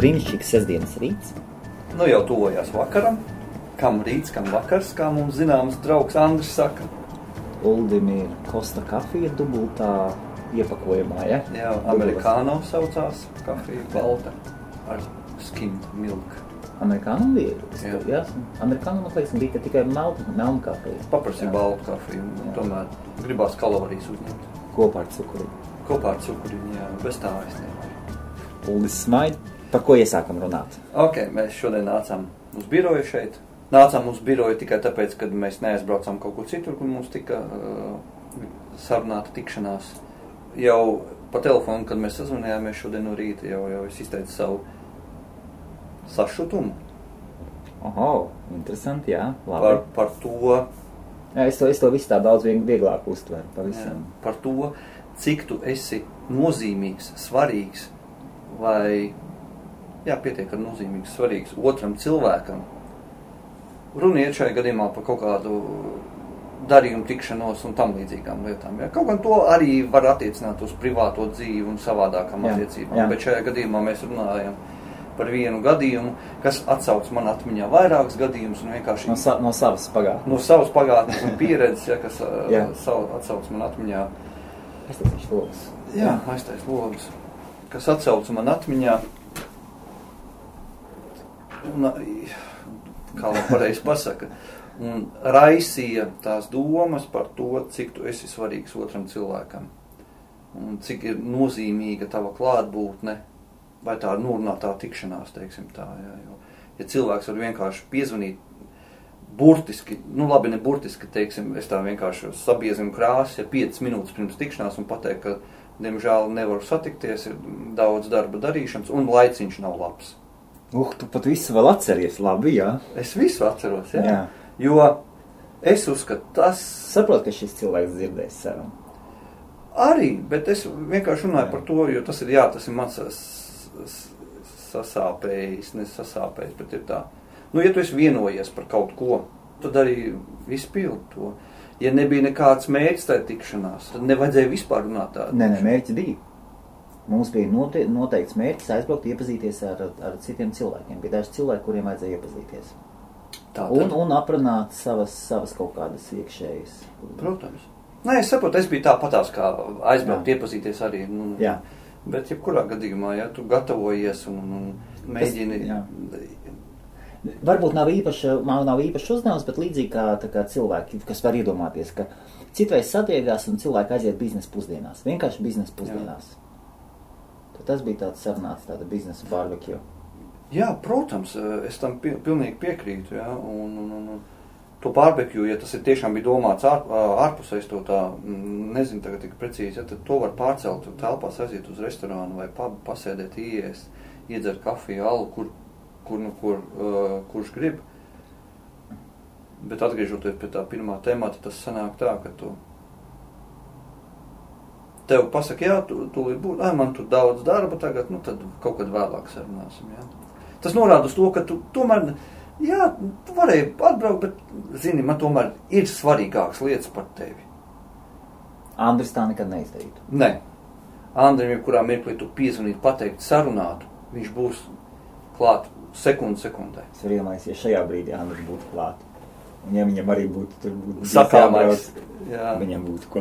brīnišķīgs sestdienas rīts. Nu jau tuvojās vakaram. Kam rīts, kam vakars, kā mums zināms draugs Andris saka. Uldim ir Costa kafija dubultā iepakojumā, ja? Jā, amerikāno saucās kafija, balta ar skimmed milk. Amerikāno bija? Jā. Amerikāno, man liekas, bija tikai melna kafija. Paprasīja baltu kafiju, tomēr gribās kalorijas uzņemt. Kopā ar cukuriņu. Kopā ar cukuriņu, jā, bez tā es nevaru. Uldis smaid, par ko iesākam runāt? Ok, mēs šodien nācām uz biroju šeit. Nācām uz biroju tikai tāpēc, kad mēs neaizbraucām kaut kur citur, kur mums tika sarunāta tikšanās. Jau pa telefonu, kad mēs sazvanījāmies šodien no rīta, jau es izteicu savu sašutumu. Oho, interesanti, jā, labi. Par to... Jā, es to visu tā daudz vieglāk uztveru pavisam. Jā, par to, cik tu esi nozīmīgs, svarīgs vai, jā, pietiek ar nozīmīgs, svarīgs otram cilvēkam. Runa iet šajā gadījumā par kaut kādu darījumu tikšanos un tam līdzīgām lietām. Ja? Kaut gan to arī var attiecināt uz privāto dzīvi un savādākām attiecībām, bet šajā gadījumā mēs runājam par vienu gadījumu, kas atsauc man atmiņā vairākus gadījumus un vienkārši... No savas pagātnes. No savas pagātnes un pieredzes, ja, kas atsauc man atmiņā... Aiztaisīšu logus. Jā, aiztais logus. Kas atsauc man atmiņā... Un, kā man pareizi pasaka, un raisīja tās domas par to, cik tu esi svarīgs otram cilvēkam. Un cik ir nozīmīga tava klātbūtne, vai tā nurunātā tikšanās, teiksim tā. Jo, ja cilvēks var vienkārši piezvanīt burtiski, nu labi, ne burtiski, teiksim, es tā vienkārši sabiezinu krāsas, ja 5 minūtes pirms tikšanās un pateikt, ka, diemžēl, nevaru satikties, ir daudz darba darīšanas un laiciņš nav labs. Tu pat visu vēl atceries, labi, jā? Es visu atceros, jā. Jo es uzskatu, tas... Saprot, ka šis cilvēks dzirdēs savam. Arī, bet es vienkārši runāju par to, jo tas ir, jā, tas ir mans sasāpējis, nesasāpējis, bet ir tā. Nu, ja tu esi vienojies par kaut ko, tad arī izpildi to. Ja nebija nekāds mērķis tajā tikšanās, tad nevajadzēja vispār runāt tādu. Nē, mērķi bija. Mums bija noteikts mērķis aizbraukt iepazīties ar citiem cilvēkiem. Bija daži cilvēki, kuriem vajadzēja iepazīties. Un aprunāt savas kaut kādas iekšējas. Protams. Nē, es saprotu, es biju tāpatās kā aizbraukt iepazīties arī. Jā. Bet jebkurā gadījumā, ja tu gatavojies un mēģini... Varbūt nav īpaši uzdevums, bet līdzīgi kā cilvēki, kas var iedomāties, ka citreiz satiekās un cilvēki aiziet biznesa pusdienās. Vienkārši biznesa pusdienās. Tad tas bija tāds sarunāts, tāda biznesa barbecue. Jā, protams, es tam pilnīgi piekrītu, jā, un to barbecue, ja tas ir tiešām bija domāts ārpusēs to tā, nezinu tagad tik precīzi, ja, tad to var pārcelt telpās, aiziet uz restorānu vai pubu, pasēdēt, ieiest, iedzert kafiju, alu, kurš grib. Bet atgriežoties pie tā pirmā temata, tas sanāk tā, ka tu tev pasaka, jā, tu būt, man tur daudz darba tagad, nu tad kaut kad vēlāk sarunāsim, jā. Tas norāda uz to, ka tu tomēr, jā, tu varēji atbraukt, bet, zini, man tomēr ir svarīgākas lietas par tevi. Andris tā nekad neizdarītu. Nē. Andrim, jebkurā mirklī tu piezvanītu, pateikt, sarunātu, viņš būs klāt sekundē. Es varu iedomāties, ja šajā brīdī Andris būtu klāt. Un ja viņam arī būtu sakāmais, viņam būtu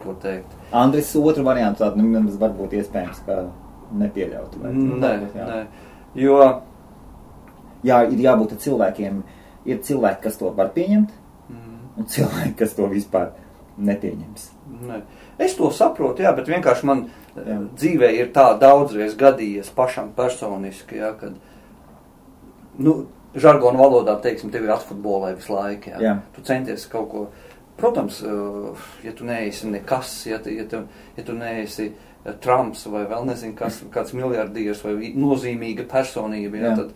ko teikt. Andris otru variantu tādu, varbūt iespējams, ka nepieļautu. Nē. Jo... Jā, ir jābūt cilvēkiem, ir cilvēki, kas to var pieņemt, un cilvēki, kas to vispār nepieņems. Nē. Es to saprotu, jā, bet vienkārši man dzīvē ir tā daudzreiz gadījies pašam personiski, jā, kad, nu, žargonu valodā, teiksim, tevi atfutbolē visu laiku, jā. Tu centies kaut ko, protams, ja tu neesi nekas, ja tu neesi Trumps vai vēl nezinu kas, kāds miljardieris vai nozīmīga personība, jā, tad,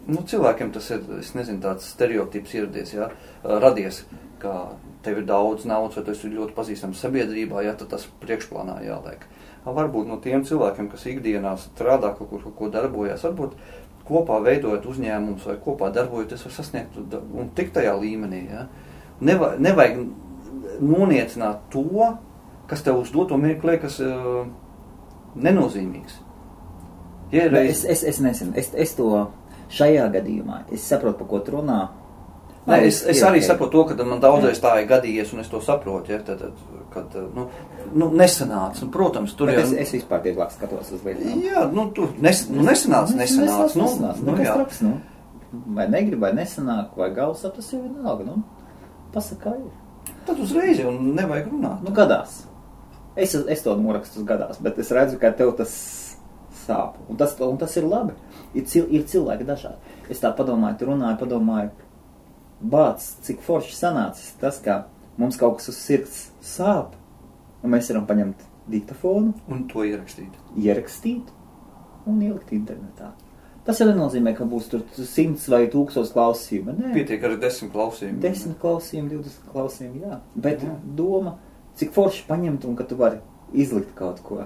nu, cilvēkiem tas ir, es nezinu, tāds stereotips ieradies, jā, radies, ka tev ir daudz naudas, vai tu esi ļoti pazīstams sabiedrībā, jā, tad tas priekšplānā jāliek. Varbūt no tiem cilvēkiem, kas ikdienā strādā, kaut ko darbojas, varbūt kopā veidojot uzņēmumus vai kopā darbojoties, var sasniegt un tik tajā līmenī, jā. Nevajag noniecināt to, kas tev uz doto mirkli liekas nenozīmīgs. Ja es nezinu, es to šajā gadījumā, es saprotu, pa ko tu runā. Nē, es arī saprotu to, ka man daudzreiz tā ir gadījies, un es to saprotu, ja, kad nesanāca, un, protams, tur jau... Es vispār vieglāk skatos uz lietām. Jā, nesanāca. Nekas traks, vai negrib, vai nesanāk, vai galvas, tas jau vienalga, pasaka, kā ir. Tad uzreiz jau nevajag runāt. Gadās. Es to norakstu uz gadās, bet es redzu, ka tev tas sāp, un tas ir labi. Ir cilvēki dažādi. Es tā padomāju, bāc, cik forši sanācis tas, ka mums kaut kas uz sirds sāp, un mēs varam paņemt diktafonu. Un to ierakstīt. Ierakstīt un ielikt internetā. Tas jau nenozīmē, ka būs tur 100 vai 1000 klausījumi. Nē. Pietiek ar 10 klausījumi. 10 klausījumi, 20 klausījumi, jā. Bet doma, cik forši paņemt un ka tu vari izlikt kaut ko.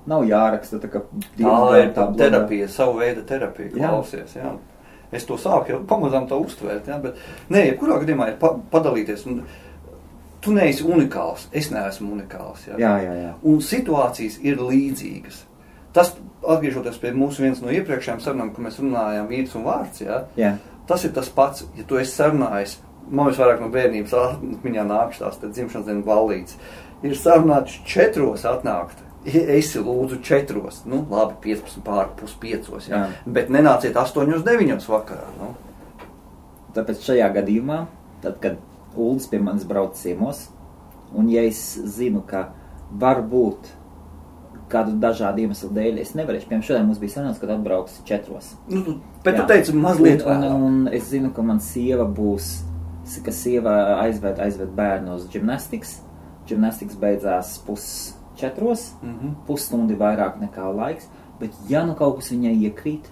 Nav jāraksta, tā kā... Tā ir terapija, savu veidu terapija, klausies, jā. Es to sāku jau pamazām to uztvērt, ja, bet nē, jebkurā gadījumā ir padalīties. Un tu neesi unikāls, es neesmu unikāls. Ja. Jā. Un situācijas ir līdzīgas. Tas, atgriežoties pie mūsu viens no iepriekšējām sarunām, ka mēs runājām vīrs un vārds, ja, tas ir tas pats, ja tu esi sarunājis, man visvairāk no bērnības atmiņā nākšās, tad dzimšanas dienu ballītes, ir sarunāts 4 atnākt. Esi lūdzu 4, labi, 15 pār pus 5, ja? Bet nenāciet 8-9 vakarā. Tāpēc šajā gadījumā, tad, kad Uldis pie manis brauc ciemos, un ja es zinu, ka varbūt kādu dažādu iemeslu dēļ es nevarēšu, piemēram, šodien mums bija sanāks, kad atbrauks 4. Bet tu teici mazliet vēl. Un es zinu, ka man sieva būs, ka sieva aizved bērnu uz gimnastikas. Gimnastikas beidzās 3:30. Pusstundi vairāk nekā laiks, bet ja kaut kas viņai iekrīt,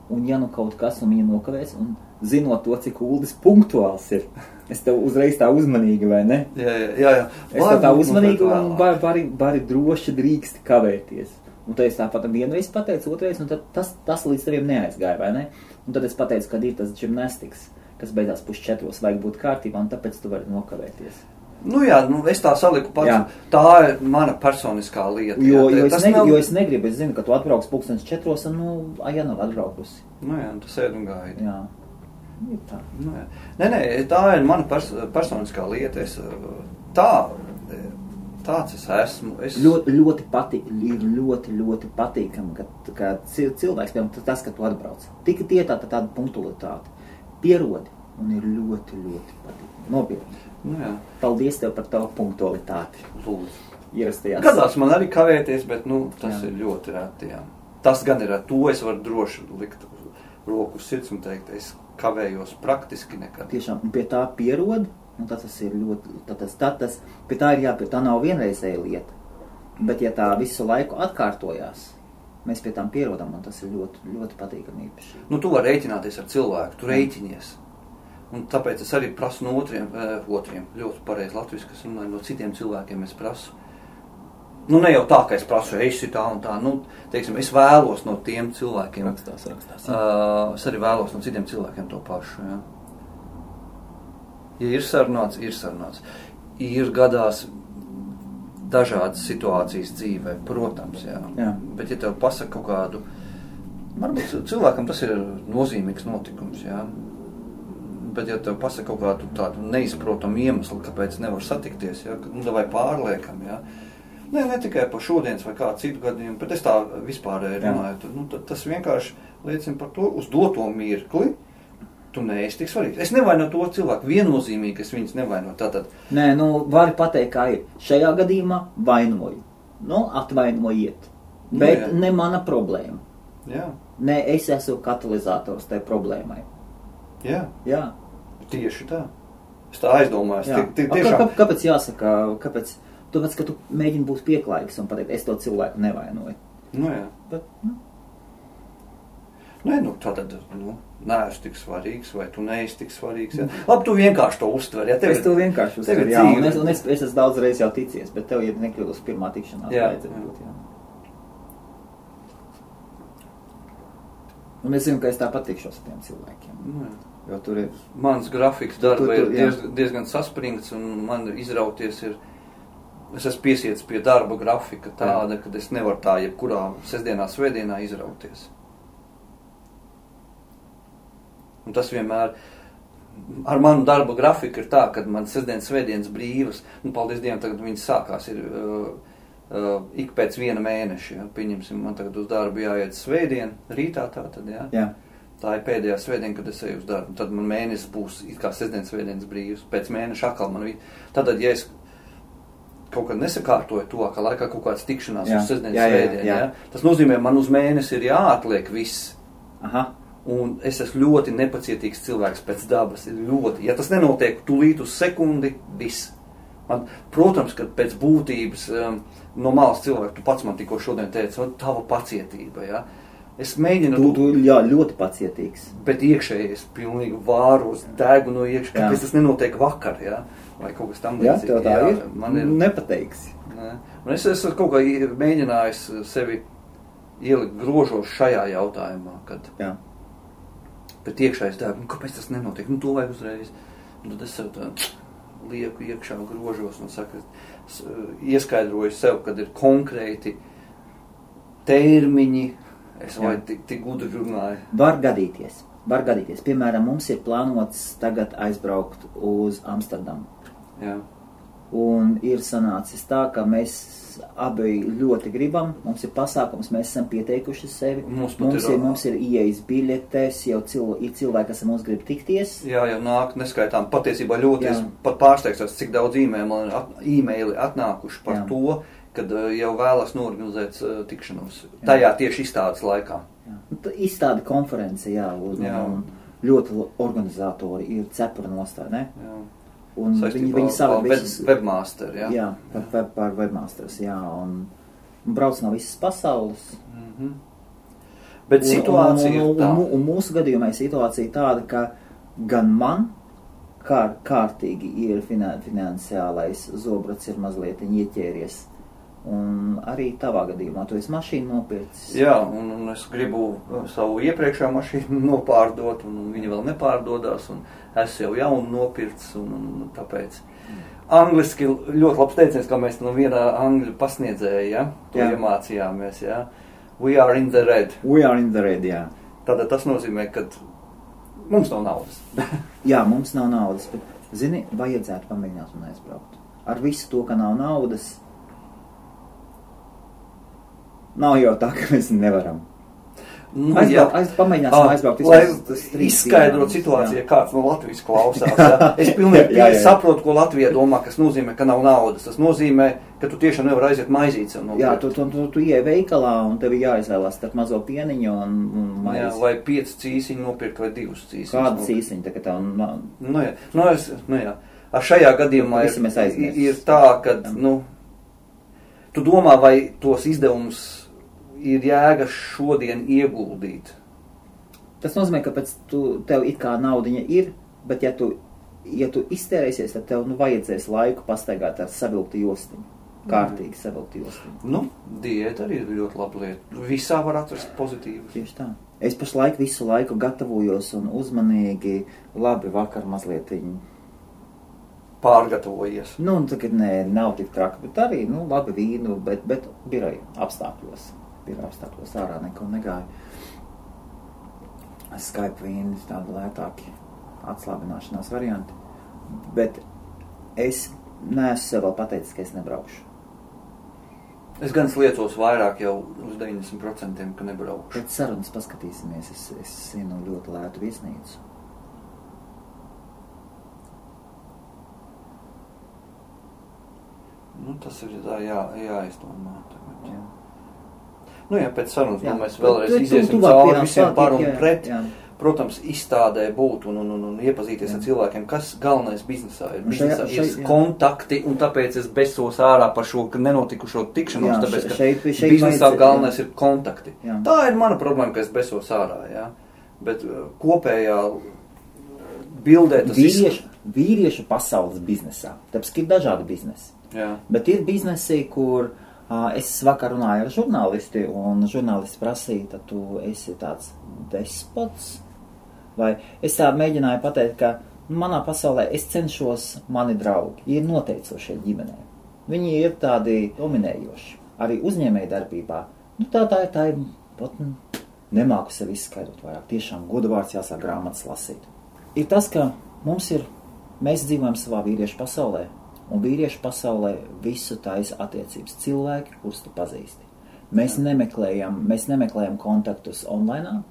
un ja kaut kas un viņa nokavēs, un zinot to, cik Uldis punktuāls ir, es tev uzreiz tā uzmanīgi, vai ne? Jā. Es tev tā uzmanīgi un vari droši drīksti kavēties. Un tad es tāpat vienreiz pateicu, otrais, un tad tas līdz teviem neaizgāja, vai ne? Un tad es pateicu, kad ir tas gimnastikas, kas beidzās 3:30, vajag būt kārtībā, un tāpēc tu vari nokavēties. Es tā saliku pats. Tā ir mana personiskā lieta. Jo es negribu, es zinu, ka tu atbrauks 4:00 un, ja nav atbraukusi. Tu sēd un gaidi. Jā. Ir tā. Nē, tā ir mana personiskā lieta. Tāds es esmu. Ļoti patīkami, ka cilvēks, piemēram, tas, ka tu atbrauc. Tik tāda punktualitāte. Pierodi un ir ļoti patīkami. Nopietni. Paldies tev par tavu punktualitāti. Lūdzu. Ierastajās. Gadās man arī kavēties, bet tas ir ļoti reti. Tas gan ir ar to, es varu droši likt roku uz sirds un teikt, es kavējos praktiski nekad. Tiešām, un pie tā pierod, un tas ir ļoti, pie tā ir jāpie, tā nav vienreizēja lieta. Bet ja tā visu laiku atkārtojās, mēs pie tām pierodam, un tas ir ļoti patīkami īpaši. Tu vari rēķināties ar cilvēku, tu rēķinies. Un tāpēc es arī prasu no otriem, ļoti pareizi latviski, kas runāju, no citiem cilvēkiem es prasu. Ne jau tā, ka es prasu, esi tā un tā, teiksim, es vēlos no tiem cilvēkiem. Rakstās. Es arī vēlos no citiem cilvēkiem to pašu, jā. Ja ir sarunāts, ir sarunāts. Ir gadās dažādas situācijas dzīvē, protams, jā. Bet ja tev pasaka kaut kādu, varbūt cilvēkam tas ir nozīmīgs notikums, jā. Bet ja tev pasaka kaut kādu tādu neizprotamu iemeslu, kāpēc nevar satikties, ja, vai pārliekam, ja. Ne tikai par šodienas vai kādu citu gadījumu, bet es tā vispārēji runāju, tad tas vienkārši liecina par to, uz doto mirkli, tu neesi tik svarīgs. Es nevainu to cilvēku, viennozīmīgi es viņus nevainu. Tātad. Nē, vari pateikt, kā ir. Šajā gadījumā vainoju. Atvainojiet. Bet ne mana problēma. Jā. Ne, es esmu katalizators tai problēmai. Jā. Tieši tā. Es tā aizdomājos. Kāpēc jāsaka, tāpēc, ka tu mēģini būt pieklājīgs un pateikt, es to cilvēku nevainoju. Bet, tātad, neesi tik svarīgs, vai tu neesi tik svarīgs. Ja? Labi, tu vienkārši to uztver. Ja? Es to vienkārši uztveru, jā. Un es esmu daudz reiz jau ticies, bet tev, ja nekļūdus pirmā tikšanās, vajadzētu būt, jā. Un es zinu, ka es tā patikšos ar tiem cilvēkiem. Jo tur ir... Mans grafiks darba ir diezgan saspringts, un man izrauties ir... Es esmu piesiets pie darba grafika tāda, kad es nevaru tā jebkurā sestdienā, svētdienā izrauties. Un tas vienmēr ar manu darba grafiku ir tā, ka man sestdienas, svētdienas brīvas, paldies Dievam, tagad viņas sākās, ir ik pēc 1 mēneša, ja, pieņemsim, man tagad uz darbu jāiet svētdien, rītā tātad, ja. Jā. Tā ir pēdējā svētdiena, kad es eju uz darbu, tad man mēnesis būs it kā sestdienas, svētdienas brīvas, pēc mēneša atkal man Tātad, ja es kaut kad nesakārtoju to, ka laikā kaut kāds tikšanās uz sestdienas, svētdien, ja, tas nozīmē, man uz mēnesi ir jāatliek viss. Aha. Un es esmu ļoti nepacietīgs cilvēks pēc dabas. Ļoti. Ja tas nenotiek tūlīt uz sekundi, viss. Protams, ka pēc būtības no malas cilvēku, tu pats man tikko šodien teici, tava pacietība, ja. Es mēģinu... Tu ļoti pacietīgs. Bet iekšēji es pilnīgi vāros, degu no iekšā, kāpēc tas nenotiek vakar, ja. Vai kaut kas tam līdzīgi. Jā, tev tā ir. Man ir nepateiksi. Ne. Un es esmu kaut kā mēģinājis sevi ielikt grožos šajā jautājumā, kad... Jā. Bet iekšā es dēbu, kāpēc tas nenotiek? To vajag uzreiz. Un tad es sev tā lieku iekšā grožos un saku, ieskaidroju sev, kad ir konkrēti termiņi, es vai tik gudri runāju. Var gadīties. Piemēram, mums ir plānots tagad aizbraukt uz Amsterdamu. Jā. Un ir sanācis tā, ka mēs abi ļoti gribam, mums ir pasākums, mēs esam pieteikuši sevi, mums ir ieejas biļetes, jau ir cilvēki, kas mums grib tikties. Jā, jau nāk neskaitām, patiesībā ļoti, es pat pārsteigtos, cik daudz e-maili atnākuši par to, kad jau vēlas norganizēt tikšanos, tajā tieši izstādes laikā. Jā. Izstāde konference, un ļoti organizatori ir cepura nostāja, ne? Jā. Un viņi savā webmaster, jā? Jā, par webmasters, jā, un brauc no visas pasaules. Mm-hmm. Bet situācija ir tā. Un mūsu gadījumā ir situācija tāda, ka gan man kārtīgi ir finansiālais zobrats ir mazliet ieķēries. Un arī tavā gadījumā, tu esi mašīnu nopircis. Jā, un es gribu savu iepriekšā mašīnu nopārdot, un viņi vēl nepārdodās, un es jau jaunu nopircis, un tāpēc. Angliski ļoti labs teiciens, kā mēs no vienā angļu pasniedzēja, ja? To iemācījāmies, ja? We are in the red. We are in the red, jā. Tātad tas nozīmē, ka mums nav naudas. Jā, mums nav naudas, bet, zini, vajadzētu pamēģināt un aizbraukt. Ar visu to, ka nav naudas, nav jau tā, ka mēs nevaram. Pamēģināsim aizbraukt. Lai izskaidrot situāciju, kāds no Latvijas klausās. Ja? Es pilnīgi saprotu, ko Latvija domā, kas nozīmē, ka nav naudas. Tas nozīmē, ka tu tiešām nevar aiziet maizīti sev nopirkt. Jā, tu ieej veikalā un tev jāizvēlās starp mazo pieniņu un maizi. Jā, vai 5 cīsiņu nopirkt vai 2 cīsiņus. Kāda cīsiņa, tā kā tev... Nu jā. Ar šajā gadījumā ir tā, ka, tu domā, vai tos izdevumus ir jēga šodien ieguldīt. Tas nozīmē, ka tev it kā naudiņa ir, bet ja tu iztērēsies, tad tev vajadzēs laiku pastaigāt ar savilktu jostiņu. Kārtīgi savilktu jostiņu. Diēta arī ir ļoti laba lieta. Visā var atrast pozitīvu. Tieši tā. Es pašlaik visu laiku gatavojos un uzmanīgi, labi vakar mazlietiņu pārgatavojies. Tagad nav tik traki, bet arī, labi vīnu, bet biroja apstākļos. Ārā neko negāju. Skype vīni tādi lētāki atslābināšanās varianti. Bet es neesmu sev vēl pateicis, ka es nebraukšu. Es gan sliecos vairāk jau uz 90%, ka nebraukšu. Pēc sarunas paskatīsimies, es zinu ļoti lētu viesnīcu. Tas ir jāizdomā tagad. Jā. Pēc sarunas mēs vēlreiz iziesim cauri visiem par un pret. Jā. Protams, izstādē būt un iepazīties ar cilvēkiem, kas galvenais biznesā ir. Biznesā ir kontakti, un tāpēc es besos ārā par šo nenotikušo tikšanos, tāpēc, ka biznesā galvenais ir kontakti. Jā. Tā ir mana problēma, ka es besos ārā, jā. Bet kopējā bildē tas vīriešu pasaules biznesā, tāpēc, ka ir dažādi biznesi. Jā. Bet ir biznesi, kur es vakar runāju ar žurnālisti, un žurnālisti prasīja, tad tu esi tāds despots, vai es tā mēģināju pateikt, ka manā pasaulē es cenšos mani draugi, ir noteicošie ģimenē. Viņi ir tādi dominējoši, arī uzņēmēji darbībā. Tā ir nemāku sev izskaidrot vairāk. Tiešām godvārds jāsāk grāmatas lasīt. Ir tas, ka mēs dzīvojam savā vīriešu pasaulē, un vīriešu pasaulē visu taisa attiecības cilvēki, kurus tu pazīsti. Mēs nemeklējam kontaktus online,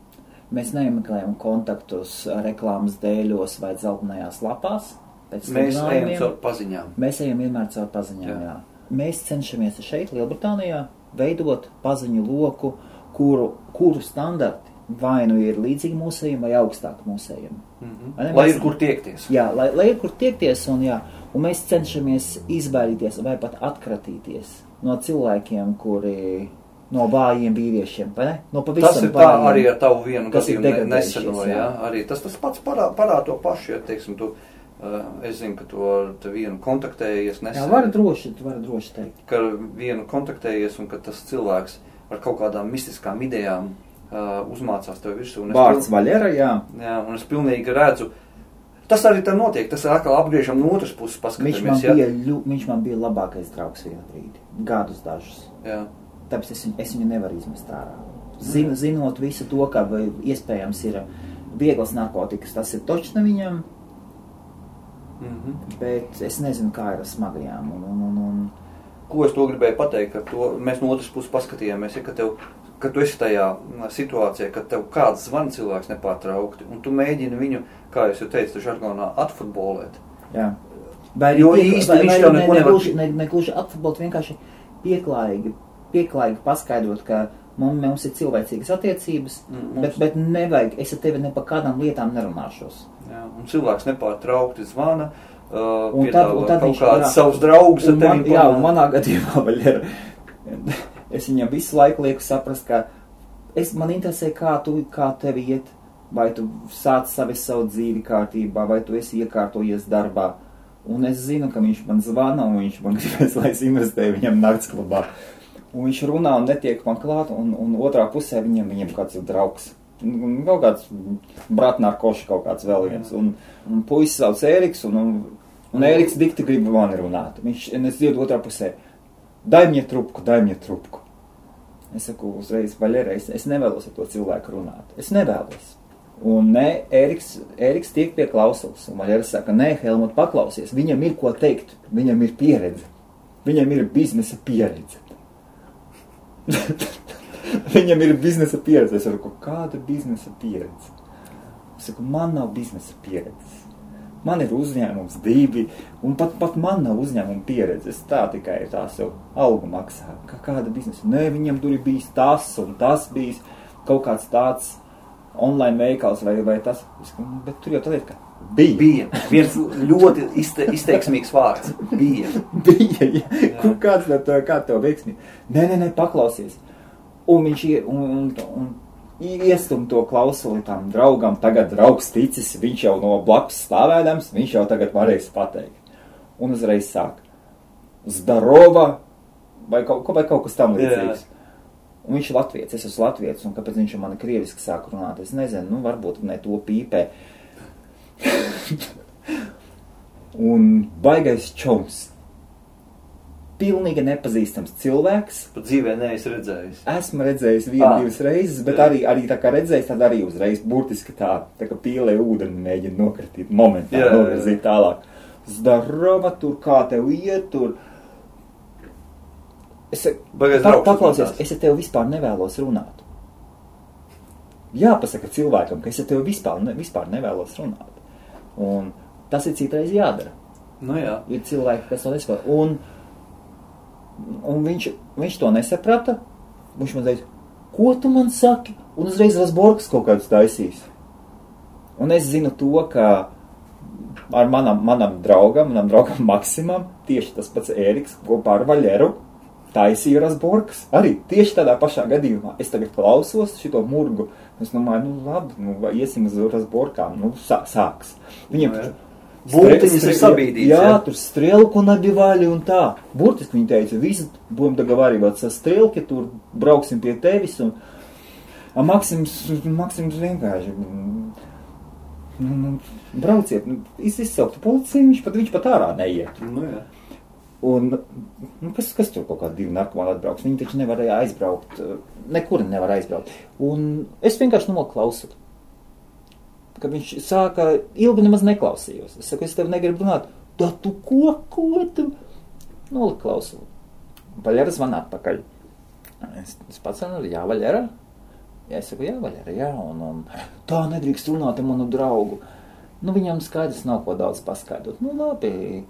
mēs nemeklējam kontaktus reklāmas dēļos vai dzeltenajās lapās. Mēs ejam caur paziņām. Mēs ejam vienmēr caur paziņām, jā. Mēs cenšamies šeit, Lielbritānijā, veidot paziņu loku, kuru standarti vai nu ir līdzīgi mūsējiem vai augstāk mūsējiem. Lai ir kur tiekties. Jā, lai ir kur tiekties, un mēs cenšamies izbaidīties vai pat atkratīties no cilvēkiem, kuri no vājiem vīriešiem, vai ne? No pavisam tas ir vājiem, tā arī ar tavu vienu gadījumu neseno, jā. Arī tas pats parāda to pašu, ja, teiksim, es zinu, ka tu vienu kontaktējies nesen. Jā, var droši teikt. Ka vienu kontaktējies un ka tas cilvēks ar kaut kādām mistiskām idejām uzmācās tev virsū. Vārds Vaļera, jā. Jā, un es pilnīgi redzu. Tas arī tā notiek, tas atkal apgriežam no otras puses paskatāmies. Viņš man bija labākais draugs vienu brīdi, gadus dažus. Jā. Tāpēc es viņu nevaru izmest ārā. Zinot visu to, ka iespējams ir vieglas narkotikas, tas ir točna viņam, bet es nezinu, kā ir ar smagajām. Ko es to gribēju pateikt, ka to mēs no otras puses paskatījāmies, ja, ka tu esi tajā situācijā, ka tev kāds zvan cilvēks nepārtraukti, un tu mēģini viņu, kā es jau teicu, žargonā atfutbolēt. Jā. Jo īsti viņš tev neko nevar... Negluži atfutbolēt, vienkārši pieklājīgi paskaidrot, ka mums ir cilvēcīgas attiecības, bet nevajag, es ar tevi ne par kādām lietām nerunāšos. Jā, un cilvēks nepārtraukti zvana, un tad kaut kāds savus draugus ar tevi. Jā, un manā gadījumā Vaļera, es viņam visu laiku lieku saprast, ka man interesē, kā tevi iet, vai tu sāc savu dzīvi kārtībā, vai tu esi iekārtojies darbā. Un es zinu, ka viņš man zvana, un viņš man gribēs, lai es investēju viņam naktsklubā. Un viņš runā un netiek man klāt, un otrā pusē viņam kāds ir draugs. Kaut kāds bratnārkoši, kaut kāds vēl viens. Un puisis sauc Ēriks, un Ēriks dikti grib mani runāt. Es dzirdu otrā pusē, dai mnie trupku. Es saku uzreiz, Vaļera, es nevēlos ar to cilvēku runāt. Es nevēlos. Un Ēriks tiek pie klausulas. Un Vaļera saka, nē, Helmut, paklausies. Viņam ir ko teikt. Viņam ir pieredze. Viņam ir biznesa pieredze. Viņam ir biznesa pieredze. Es saku, kāda biznesa pieredze? Es saku, man nav biznesa pieredzes. Man ir uzņēmums 2, un pat man nav uzņēmuma pieredzes. Tā tikai tā sev algu maksā. Kāda biznesa? Nē, viņam tur ir bijis tas, un tas bijis kaut kāds tāds online veikals vai tas. Bet tur jau tā lieta, ka bija. Viens ļoti izteiksmīgs vārds. Bija, jā. Kāds tev veiksmīgi? Nē, paklausies. Un viņš iestum to klausuli tam draugam, tagad draugs ticis, viņš jau no blakus stāvēdams, viņš jau tagad varēs pateikt. Un uzreiz sāk Zdarova vai kaut kas tam līdzīgs. Un viņš ir latviets, es esmu latviets, un kāpēc viņš man krieviski sāk runāt, es nezinu, varbūt ne to pīpē. Un baigais čoms. Pilnīgi nepazīstams cilvēks. Pat dzīvē neesi redzējis. Esmu redzējis 1-2 reizes, bet arī tā kā redzējis, tad arī uzreiz burtiski tā kā pīlē ūdeni mēģina nokritīt momentā, novirzīt tālāk. Zdarova, tur kā tev iet, tur. Paklausies, es ar tevi vispār nevēlos runāt. Jāpasaka cilvēkam, ka es ar tevi vispār nevēlos runāt. Un tas ir citreiz jādara. Nu jā. Ir cilvēki, kas to nesaprot. Un viņš to nesaprata. Viņš man teica, ko tu man saki? Un uzreiz Rasborgs kaut kādus taisīs. Un es zinu to, ka ar manam draugam Maksimam, tieši tas pats Ēriks kopā ar Vaļeru, taisīja Rasborgs. Arī tieši tādā pašā gadījumā. Es tagad klausos šito murgu. Es domāju, labi, iesim uz Rasborkām. Sāks. Viņiem Būtiņas ir sabīdīts. Jā, tur strelku nabivāļi un tā. Burtiski viņi teica, visi budem dogovarīvāt sa strelki, tur brauksim pie tevis. Un Maksims vienkārši brauciet, izsauktu policiju, viņš pat ārā neiet. Nu jā. Un, kas tur kaut kādi 2 narkomāni atbrauks? Viņi taču nevarēja aizbraukt, nekur nevar aizbraukt. Un es vienkārši noklausu. Kad viņš sāka, ilgi nemaz neklausījos. Es saku, es tev negribu runāt. Da tu ko tu? Noliku klausu. Vaļera zvana atpakaļ. Es pats saku, jā, Vaļera? Jā, es saku, jā, Vaļera, jā. Un tā nedrīkst runāt ar manu draugu. Viņam skaidrs nav ko daudz paskaidrot. Labi.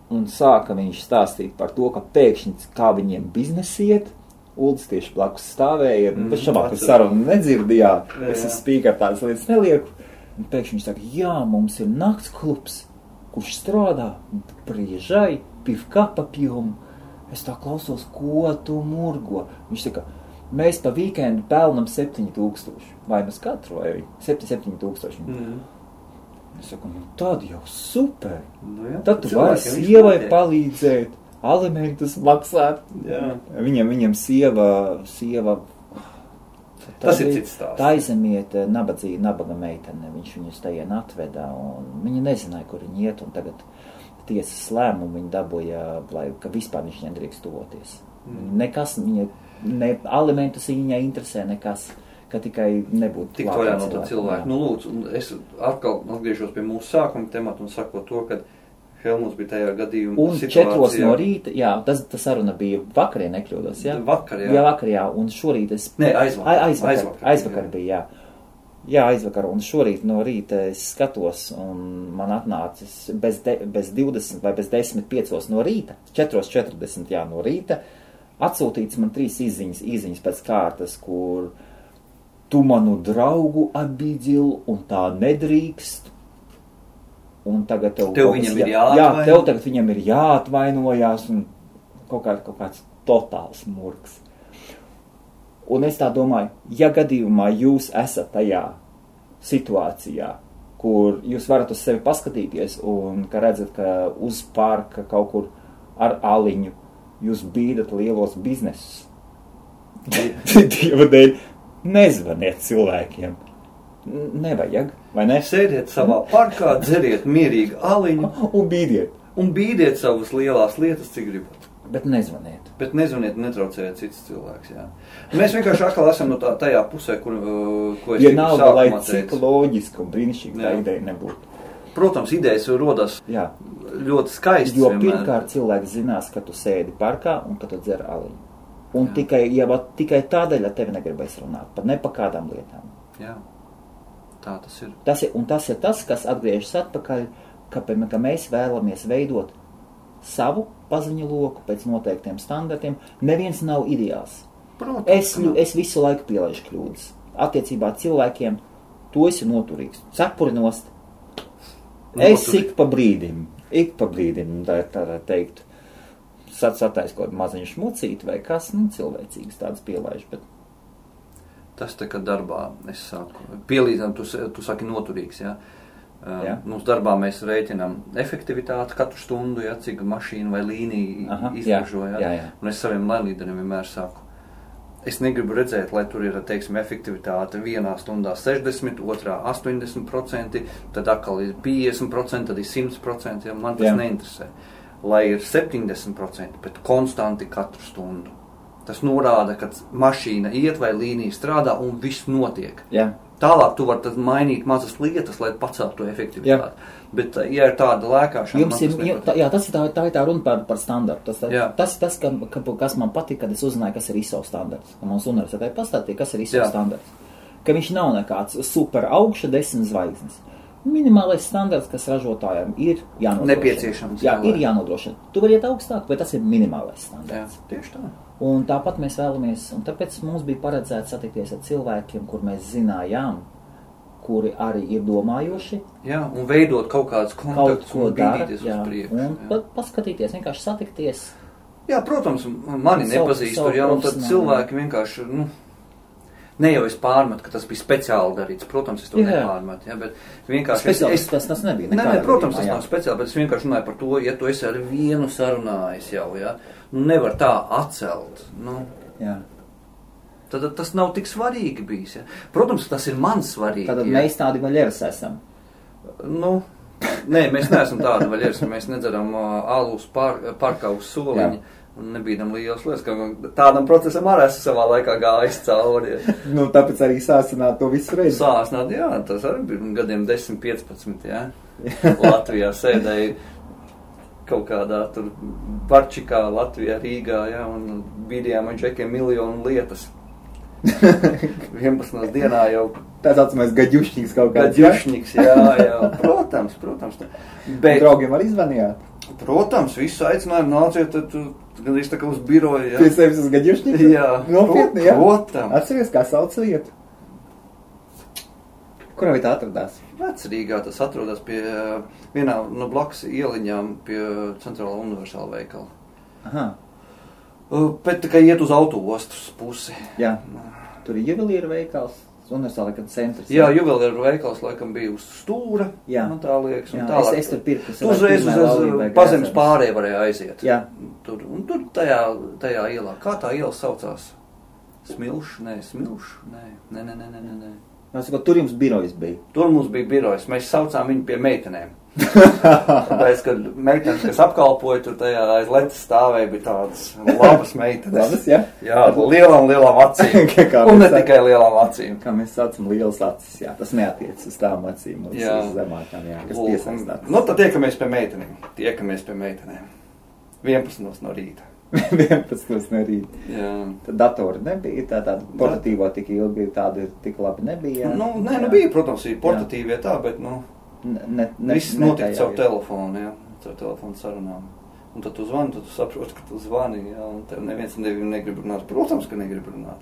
Un sāka viņš stāstīt par to, ka pēkšņi kā viņiem biznesi iet. Uldis tieši blakus stāvēja, bet šamāk sarunu nedzirdījā. Es spīkar tādas lietas nelieku. Un pēkšņi viņš saka, jā, mums ir nakts klubs, kurš strādā priežai, pivkapa pjum. Es tā klausos, ko tu murgo. Viņš saka, mēs pa vīkendu pelnam 7,000. Vai mēs katru, vai 7,000. Es saku, tad jau super. Tad tu vari sievai palīdzēt, alimentus maksāt. Viņam sieva tas ir cits stāsts. Taizemiet nabaga meitene. Viņš viņus tajien atvedā, un viņi nezināja, kur viņi iet, un tagad tiesas lēmumu viņi dabūja, ka vispār viņš nedrīkst tuvoties. Nekas, ne alimentus viņai interesē, nekas. Ka tikai nebūtu tik vaļā no tā cilvēku. Lūdzu, es atkal atgriežos pie mūsu sākuma temata un sakot to, ka Helmuts bija tajā gadījumā un situācijā. Un 4 no rīta, jā, tas saruna bija vakarī, nekļūdos, jā? Vakar, jā. Jā, vakar, jā, un šorīt es... Nē, aizvakar bija, jā. Jā, aizvakar, un šorīt no rīta es skatos, un man atnācis bez 20 vai bez 10:05 no rīta, 4:40, jā, no rīta, atsūtīts man 3 īziņas pēc kārtas, kur tu manu draugu abidil, un tā nedrīkst. Un tagad tev viņam ir jāatvaino. Jā, tev tagad viņam ir jāatvainojās, un kaut kāds totāls murgs. Un es tā domāju, ja gadījumā jūs esat tajā situācijā, kur jūs varat uz sevi paskatīties, un ka redzat, ka uz parka kaut kur ar aliņu jūs bīdat lielos biznesus. Dieva dēļ. Nezvaniet cilvēkiem. Nevajag, vai ne? Sēdiet savā parkā, dzeriet mierīgi aliņu. Un bīdiet savas lielās lietas, cik gribat. Bet nezvaniet. Bet nezvaniet, netraucējiet cits cilvēks, jā. Mēs vienkārši atkal esam no tajā pusē, ko es sākumā lai cik loģiski un brīnišķīgi tā ideja nebūtu. Protams, idejas rodas ļoti skaisti. Jo pirmkārt cilvēks zinās, ka tu sēdi parkā un ka tu dzer aliņu. Un tikai tādēļ ar tevi negribēs runāt, pat ne pa kādām lietām. Jā, tā tas ir. Tas ir tas, kas atgriežas atpakaļ, ka mēs vēlamies veidot savu paziņu loku pēc noteiktiem standartiem. Neviens nav ideāls. Protams, es visu laiku pielaižu kļūdas. Attiecībā cilvēkiem tu esi noturīgs. Cepuri nost. Es ik pa brīdim, tā teikt, satais kaut maziņu šmucīt vai kas, cilvēcīgas tādas pielaiž, bet... Tas tā kā darbā, es saku, pielīdzinām, tu saki noturīgs, jā? Mums darbā mēs rēķinām efektivitāti katru stundu, jā, cik mašīna vai līnija izražo, jā? Un es saviem lēnlīderiem vienmēr saku, es negribu redzēt, lai tur ir, teiksim, efektivitāte 1 stundā 60, 2 80%, tad atkal ir 50%, tad ir 100%, jā, man tas neinteresē. Lai ir 70%, bet konstanti katru stundu. Tas norāda, ka mašīna iet vai līnija strādā un viss notiek. Jā. Tālāk tu vari mainīt mazas lietas, lai paceltu to efektivitāti. Jā. Bet, ja ir tāda lēkāšana... Tas ir tā runa par standartu. Tas ir tas, kas man patīk, kad es uzzināju, kas ir ISO standarts. Ka mums universitātē pastāstīja, kas ir ISO standarts. Ka viņš nav nekāds super augša 10 zvaigznes. Minimālais standarts, kas ražotājiem ir jānodrošina. Nepieciešams. Jā, ir jānodrošina. Tu vari iet augstāk, bet tas ir minimālais standarts. Jā, tieši tā. Un tāpat mēs vēlamies, un tāpēc mums bija paredzēts satikties ar cilvēkiem, kur mēs zinājām, kuri arī ir domājoši. Jā, un veidot kaut kādus kontaktus un bīdīties uz priekšu. Un paskatīties, vienkārši satikties. Jā, protams, mani nepazīst tur, jā, un tad cilvēki vienkārši, ne jau es pārmetu, ka tas bija speciāli darīts. Protams, es to nepārmetu, ja, bet vienkārši... Tas nebija. Nē, protams, tas nav speciāli, bet es vienkārši runāju par to, ja tu esi ar vienu sarunājis jau, ja, nevar tā atcelt, Jā. Tad tas nav tik svarīgi bijis, ja. Protams, tas ir man svarīgi. Tad mēs tādi vaļeras esam. Nē, mēs neesam tādi vaļieri, mēs nedzeram alus parkā uz soliņa. Un nebīdam liels lietas, ka tādam procesam arī esmu savā laikā gājis cauri. Nu, tāpēc arī sāsināt to visu reizi. Sāsināt, jā, tas arī bija gadiem 10-15, jā. Latvijā sēdēja kaut kādā tur Barčikā, Latvijā, Rīgā, jā, un bīdījām ar džekiem miljonu lietas. 11 dienā jau. Tā saucamais gaģušņiks kaut kāds. Gaģušņiks, jā, protams. Bet, draugiem arī zvanījāt? Protams, visu aicinājumu nāciet, tad gandrīz tā kā uz biroju, jā. Pie sevis uz gaģušņiku? Jā. Nopietni, jā? Protams. Atceries, kā sauc vietu? Kurā vietā atradās? Vecrīgā tas atrodas pie vienā no blakus ieliņām pie Centrālā universāla veikala. Aha. Bet tā kā iet uz autoostas pusi. Jā. Tur ir juvelīra veikals. Universāla centrs. Jā, juvelieru veikals laikam bija uz stūra. Jā. Man tā liekas. Un jā, es tur pirku. Tu uzreiz uz Pazemes pārēju varēja aiziet. Jā. Tur tajā ielā. Kā tā iela saucās? Smilš? Nē. Tur jums birojas bija? Tur mums bija birojas. Mēs saucām viņu pie meitenēm. Tāpēc, kad meitenes, kas apkalpoja, tur tajā aiz letes stāvēja, bija tādas labas meitenes. Labas, jā? Jā, lielām acīm. Un ne tikai lielām acīm. Kā mēs saucam, lielas acis, jā. Tas neatiec uz tām acīm, uz zemākām, jā, kas piesaistās. Nu, tad tiekamies pie meitenēm. 11 no rīta. 11 no rīta. Jā. Tad datori nebija, tāda portatīvo tik ilgi, tāda tik labi nebija. Nē, bija, protams, ir portatīvie tā, bet, viss notika caur telefonu, jā, caur telefonu sarunām. Un tad tu zvani, tad tu saproti, ka tu zvani, jā, un tev neviens negrib runāt. Protams, ka negrib runāt.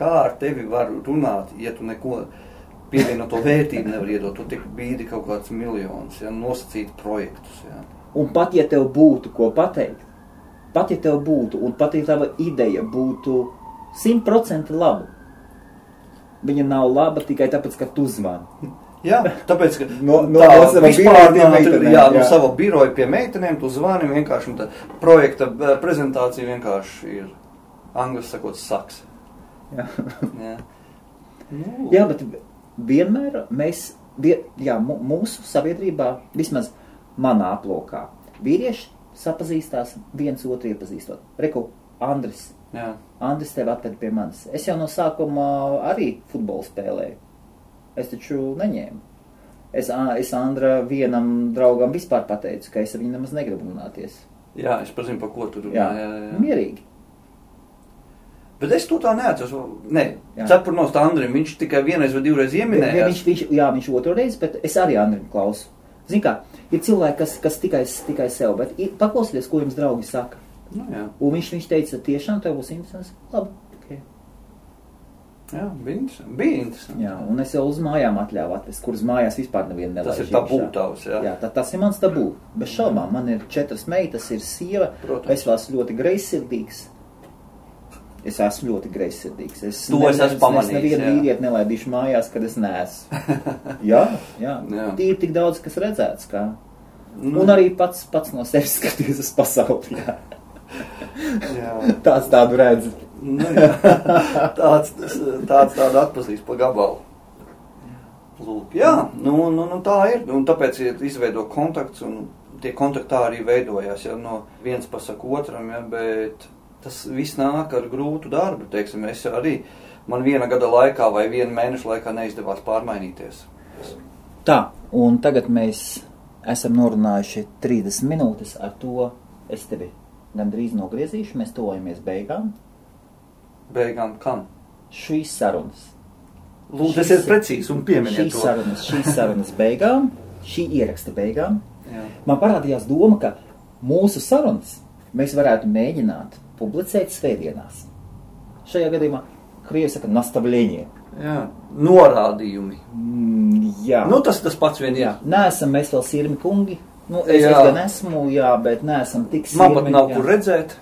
Kā ar tevi var runāt, ja tu neko pievienoto vērtību nevar iedot? Tu tik bīdi kaut kāds miljonus, jā, nosacīt projektus, jā. Un pat, ja tev būtu ko pateikt, pat, ja tev būtu, un pat, ja tava ideja būtu 100% laba, viņa nav laba tikai tāpēc, ka tu zvani. Jā, tāpēc, ka no sava biroja pie meitenēm tu zvani vienkārši, un tā projekta prezentācija vienkārši ir, angļuiski sakot, saks. Jā. Jā. Jā, bet vienmēr mūsu sabiedrībā, vismaz manā aplokā, vīrieši sapazīstās viens otru iepazīstot. Reku, Andris. Jā. Andris tevi atved pie manis. Es jau no sākuma arī futbolu spēlēju. Es taču neņēmu. Es Andra vienam draugam vispār pateicu, ka es ar viņu nemaz negribu runāties. Jā, es pazinu, par ko tu runā. Jā. Mierīgi. Bet es to tā neatceros. Nē, cepurnos tā Andrim, viņš tikai vienreiz vai divreiz ieminējās. Viņš otru reizi, bet es arī Andrim klausu. Zini kā, ir cilvēki, kas tikai sev, bet paklausieties, ko jums draugi saka. Nu, jā. Un viņš teica, tiešām tev būs interesants. Labi. Jā, bija interesanti. Jā, un es jau uz mājām atļāvu atvest, kuras mājās vispār nevienu nelaiž. Tas ir tabū tavs, jā. Jā, tas ir mans tabū. Bez šaubām, man ir 4 meitas, ir sieva. Protams. Es esmu ļoti greizsirdīgs. Es esmu pamanījis. Es nevienu vīrieti nelaidīšu mājās, kad es neesmu. Jā. Tīri tik daudz, kas redzēts, kā. Un arī pats no sevis skaties uz pasauli, jā. Tāds tādu redz. Tādu atpazīst pa gabalu. Lūk, jā, tā ir. Un tāpēc izveido kontakts, un tie kontaktā arī veidojās, ja, no viens pasaka otram, ja, bet tas viss nāk ar grūtu darbu, teiksim, man 1 gada laikā vai 1 mēneša laikā neizdevās pārmainīties. Tā, un tagad mēs esam norunājuši 30 minūtes, ar to es tevi gandrīz nogriezīšu, mēs tojamies beigām. Beigām kam? Šīs sarunas. Lūdzu, tas ir precīzi un pieminiet to. Šīs sarunas beigām, šī ieraksta beigām. Jā. Man parādījās doma, ka mūsu sarunas mēs varētu mēģināt publicēt svētdienās. Šajā gadījumā krievi saka nastavļenie. Jā, norādījumi. Jā. Tas pats vien ir. Neesam mēs vēl sirmi kungi. Es gan esmu, jā, bet neesam tik sirmi. Man pat nav kur redzēt.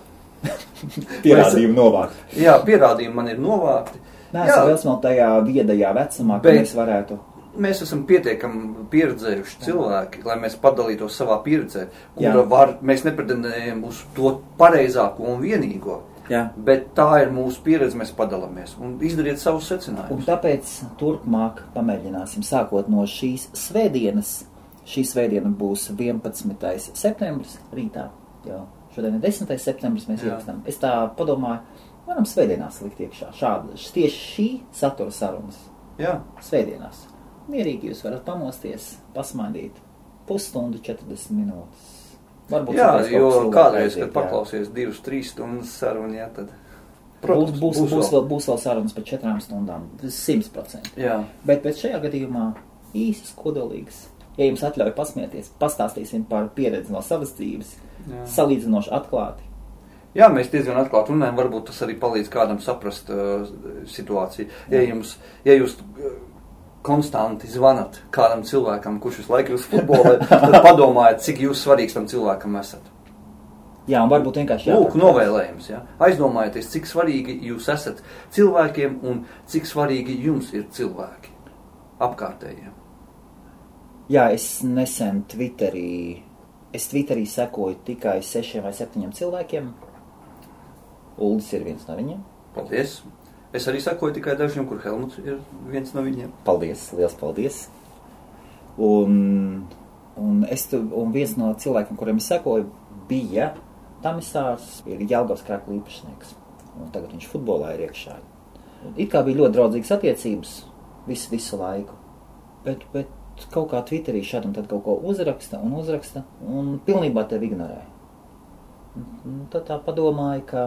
Pierādījumi novākti. Jā, pierādījumi man ir novākti. Neesam vēl smelt tajā viedajā vecumā, ka mēs varētu. Mēs esam pietiekami pieredzējuši cilvēki, lai mēs padalītos savā pieredzē, mēs nepretendējam uz to pareizāko un vienīgo. Jā. Bet tā ir mūsu pieredze, mēs padalāmies un izdariet savus secinājumus. Un tāpēc turpmāk pamēģināsim, sākot no šīs svētdienas, Šī svētdiena būs 11. septembris rītā. Jā. Šodien ir 10. septembris, mēs ierakstām. Es tā padomāju, varam svētdienās likt iekšā. Tieši šī satura sarunas. Jā. Svētdienās. Mierīgi jūs varat pamosties, pasmaidīt. Pusstundu, 40 minūtes. Varbūt jā, jo kādreiz, kad paklausies 2-3 stundas sarunu, jā, tad... Protams, būs vēl sarunas par 4 stundām. 100%. Jā. Bet šajā gadījumā īsas, kodolīgas. Ja jums atļauj pasmieties, pastāstīsim par pieredzi no savas dzīves. Jā. Salīdzinoši atklāti. Jā, mēs diezgan atklāti runājam, varbūt tas arī palīdz kādam saprast situāciju. Ja jūs konstanti zvanat kādam cilvēkam, kurš visu laiku ir uz futbolē, tad padomājiet, cik jūs svarīgs tam cilvēkam esat. Jā, un varbūt vienkārši Lūk, novēlējums, jā. Aizdomājieties, cik svarīgi jūs esat cilvēkiem un cik svarīgi jums ir cilvēki apkārtējiem. Jā, es nesen Twitterī sekoju tikai 6 vai 7 cilvēkiem. Uldis ir viens no viņiem. Paldies. Es arī sekoju tikai dažiem, kur Helmuts ir viens no viņiem. Paldies, liels paldies. Un viens no cilvēkiem, kuriem es sekoju, bija Tamisārs, ir Jelgavas Krakla īpašnieks. Un tagad viņš futbolā ir iekšā. It kā bija ļoti draudzīgas attiecības visu laiku. Bet kaut kā Twitterī šādi un tad kaut ko uzraksta un pilnībā tevi ignorē. Tad tā padomāju, ka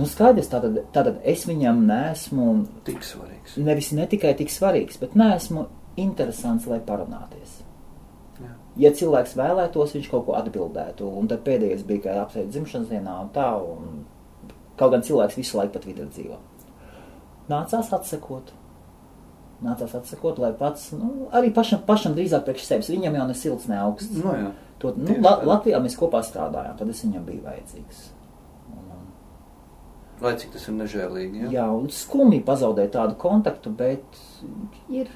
skaidrs, tātad es viņam neesmu tik svarīgs. Nevis ne tikai tik svarīgs, bet neesmu interesants, lai parunāties. Jā. Ja cilvēks vēlētos, viņš kaut ko atbildētu, un tad pēdējais bija, ka apsveic dzimšanas dienā un tā, un kaut gan cilvēks visu laiku pat Twitter dzīvo. Nācās atsekot, lai pats, arī pašam drīzāk priekš sevis, viņam jau ne silts, ne augsts. No jā. Latvijā mēs kopā strādājām, tad es viņam biju vajadzīgs. Lai cik tas ir nežēlīgi, jā? Jā, un skumji pazaudēt tādu kontaktu, bet ir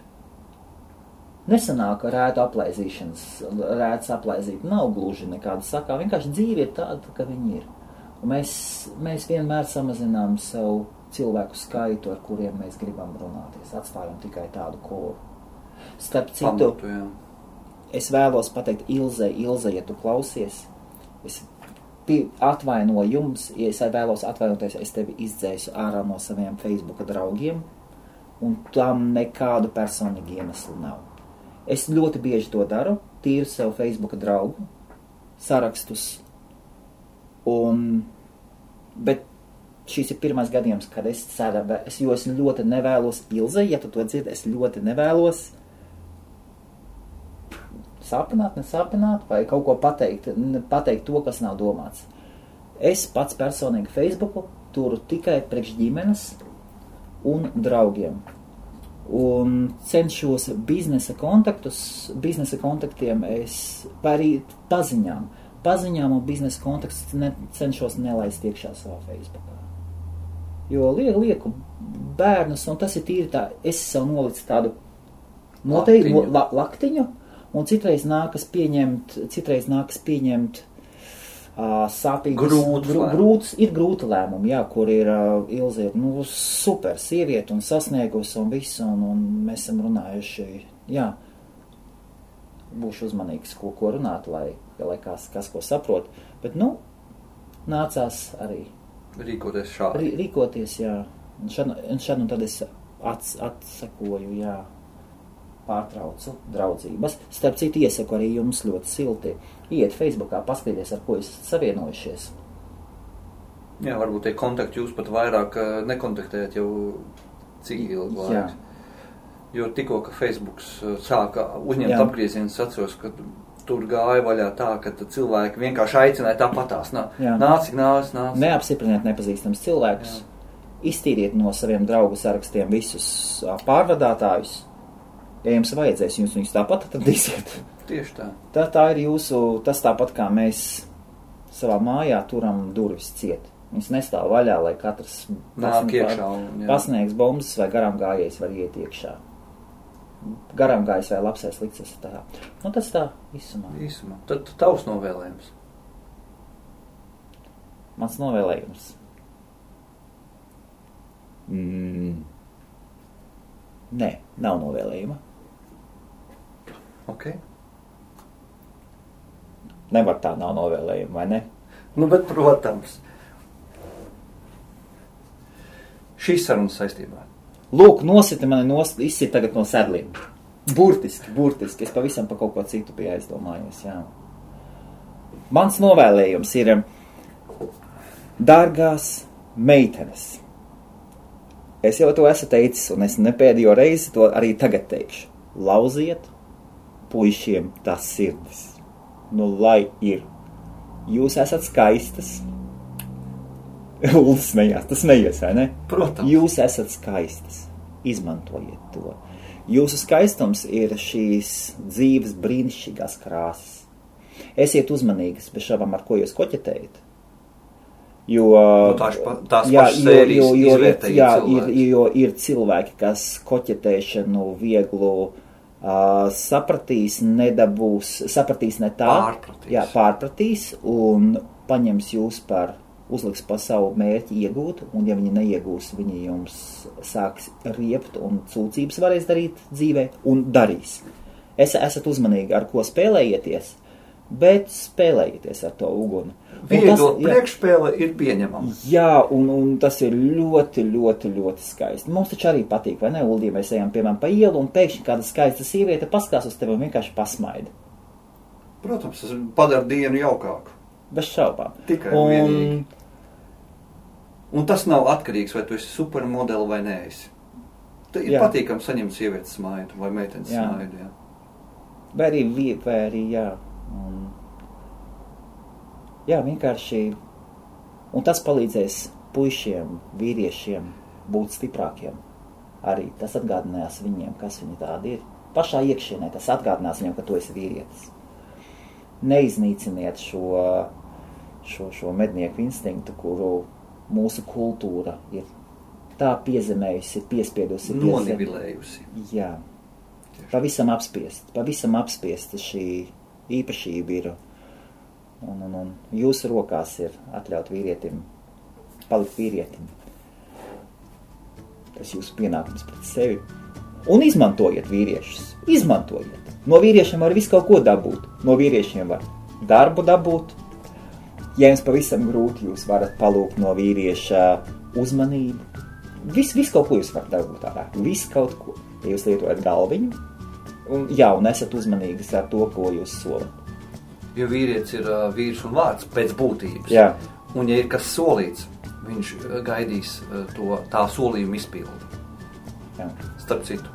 nesanāk rētu aplaizīt. Nav gluži nekāda sakā, vienkārši dzīve ir tāda, ka viņi ir. Un mēs vienmēr samazinām savu cilvēku skaitu, ar kuriem mēs gribam runāties. Atstājam tikai tādu koru. Starp citu, es vēlos pateikt Ilze, ja tu klausies, es atvainoju jums, ja es vēlos atvainoties, es tevi izdzēsu ārā no saviem Facebooka draugiem, un tam nekādu personīgu iemeslu nav. Es ļoti bieži to daru, tīru sev Facebooka draugu sarakstus, bet šis ir pirmais gadījums, kad es ļoti nevēlos, Ilze, ja tu to dzirdi, es ļoti nevēlos nesāpināt, vai kaut ko pateikt to, kas nav domāts. Es pats personīgi Facebooku turu tikai priekš ģimenes un draugiem. Un cenšos biznesa kontaktiem vai arī paziņām un biznesa kontaktus cenšos nelaist iekšā savā Facebookā. Jo lieku bērnus, un tas ir tīri tā, es sev nolicu tādu noteikti laktiņu, un citreiz nākas pieņemt sāpīgus, ir grūti lēmumi, jā, kur ir Ilze, super sieviete un sasniegusi un visu, un mēs esam runājuši, jā, būšu uzmanīgs, ko runāt, lai kas ko saprot, bet, nācās arī rīkoties šādi. Rīkoties, jā, un šad un tad es atsakoju, jā, pārtraucu draudzības. Starp citu, iesaku arī jums ļoti silti. Iet Facebookā, paskaties, ar ko esat savienojušies. Jā, varbūt tie kontakti jūs pat vairāk nekontaktējat jau cik ilgi laiks. Jo tikko, ka Facebooks sāka uzņemt apgriezienus, atceros, ka tur gāja vaļā tā, ka cilvēki vienkārši aicināja tāpatās. Nāc. Neapstipriniet nepazīstams cilvēkus. Iztīriet no saviem draugu sarakstiem visus pārvadātājus. Ja jums vajadzēs, jūs viņus tāpat atradīsiet. Tieši tā. Tā ir tas tāpat kā mēs savā mājā turam durvis ciet. Viņas nestāv vaļā, lai katrs pasniegs bombas vai garām gājējs var iet iekšā. Garām gājējs vai labsais likts tā. Tas tā īsumā. Tad tavs novēlējums. Mans novēlējums. Nē, nav novēlējuma. Ok. Nevar tā nav novēlējuma, vai ne? Nu, bet, protams, šīs sarunas saistībā. Lūk, nosita mani izsit tagad no sedliem. Burtiski. Es pavisam pa kaut ko citu biju aizdomājies, jā. Mans novēlējums ir, dārgās meitenes. Es jau to esmu teicis, un es nepēdējo reizi to arī tagad teikšu. Lauziet puišiem tās sirdis. Nu, lai ir. Jūs esat skaistas. Uldis smējās, tas smejies, vai ne? Protams. Jūs esat skaistas. Izmantojiet to. Jūsu skaistums ir šīs dzīves brīnišķīgās krāsas. Esiet uzmanīgas, bez šabām, ar ko jūs koķetējat. Jo, tās pašas sērijas izvērtēja cilvēki. Jo ir cilvēki, kas koķetēšanu vieglu sapratīs, nedabūs, sapratīs ne tā. Pārpratīs un paņems jūs par uzliks pa savu mērķi iegūt, un ja viņi neiegūs, viņi jums sāks riept un sūdzības varēs darīt dzīvē, un darīs. Esat uzmanīgi, ar ko spēlējieties, bet spēlējieties ar to uguni. Viegla priekšspēle ir pieņemama. Jā, un tas ir ļoti, ļoti, ļoti skaisti. Mums taču arī patīk, vai ne, Uldī, mēs ejam, piemēram, pa ielu, un pēkšņi kāda skaista sieviete paskās uz tevi un vienkārši pasmaida. Protams, tas padara dienu jaukāku. Bez šaubām. Tikai vienīgi. Un tas nav atkarīgs, vai tu esi supermodeli vai neesi. Ir patīkami saņemt sievietes smaidu vai meitenes smaidu, jā. Vai arī, jā. Jā, vienkārši. Un tas palīdzēs puišiem, vīriešiem būt stiprākiem. Arī tas atgādinās viņiem, kas viņi tādi ir. Pašā iekšienē tas atgādinās viņiem, ka tu esi vīrietis. Neiznīciniet šo mednieku instinktu, kuru mūsu kultūra ir tā piezemējusi, piespiedusi. Nonivilējusi. Jā. Pavisam apspiesta šī īpašība ir. Un jūsu rokās ir atļaut vīrietim, palikt vīrietim. Tas jūsu pienākums pret sevi. Un izmantojiet vīriešus. Izmantojiet. No vīriešiem var visu kaut ko dabūt. No vīriešiem var darbu dabūt. Ja jums pavisam grūti, jūs varat palūgt no vīrieša uzmanību. Visu kaut ko jūs varat dabūt ārā. Visu kaut ko. Ja jūs lietojat galviņu. Un esat uzmanīgas ar to, ko jūs solat. Jo vīrietis ir vīrs un vārds pēc būtības. Jā. Un ja ir kas solīts, viņš gaidīs tā solījuma izpildi. Jā. Starp citu.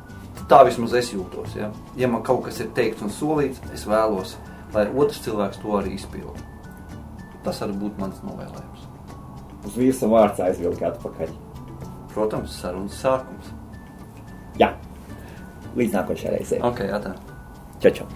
Tā vismaz es jūtos. Ja? Ja man kaut kas ir teikts un solīts, es vēlos, lai otrs cilvēks to arī izpildi. Tas arī būtu mans novēlējums. Uz vīrs un vārds aizvilkt atpakaļ. Protams, sarunas sākums. Jā. Līdz nākošajai reizei. Ok, atā. Čau.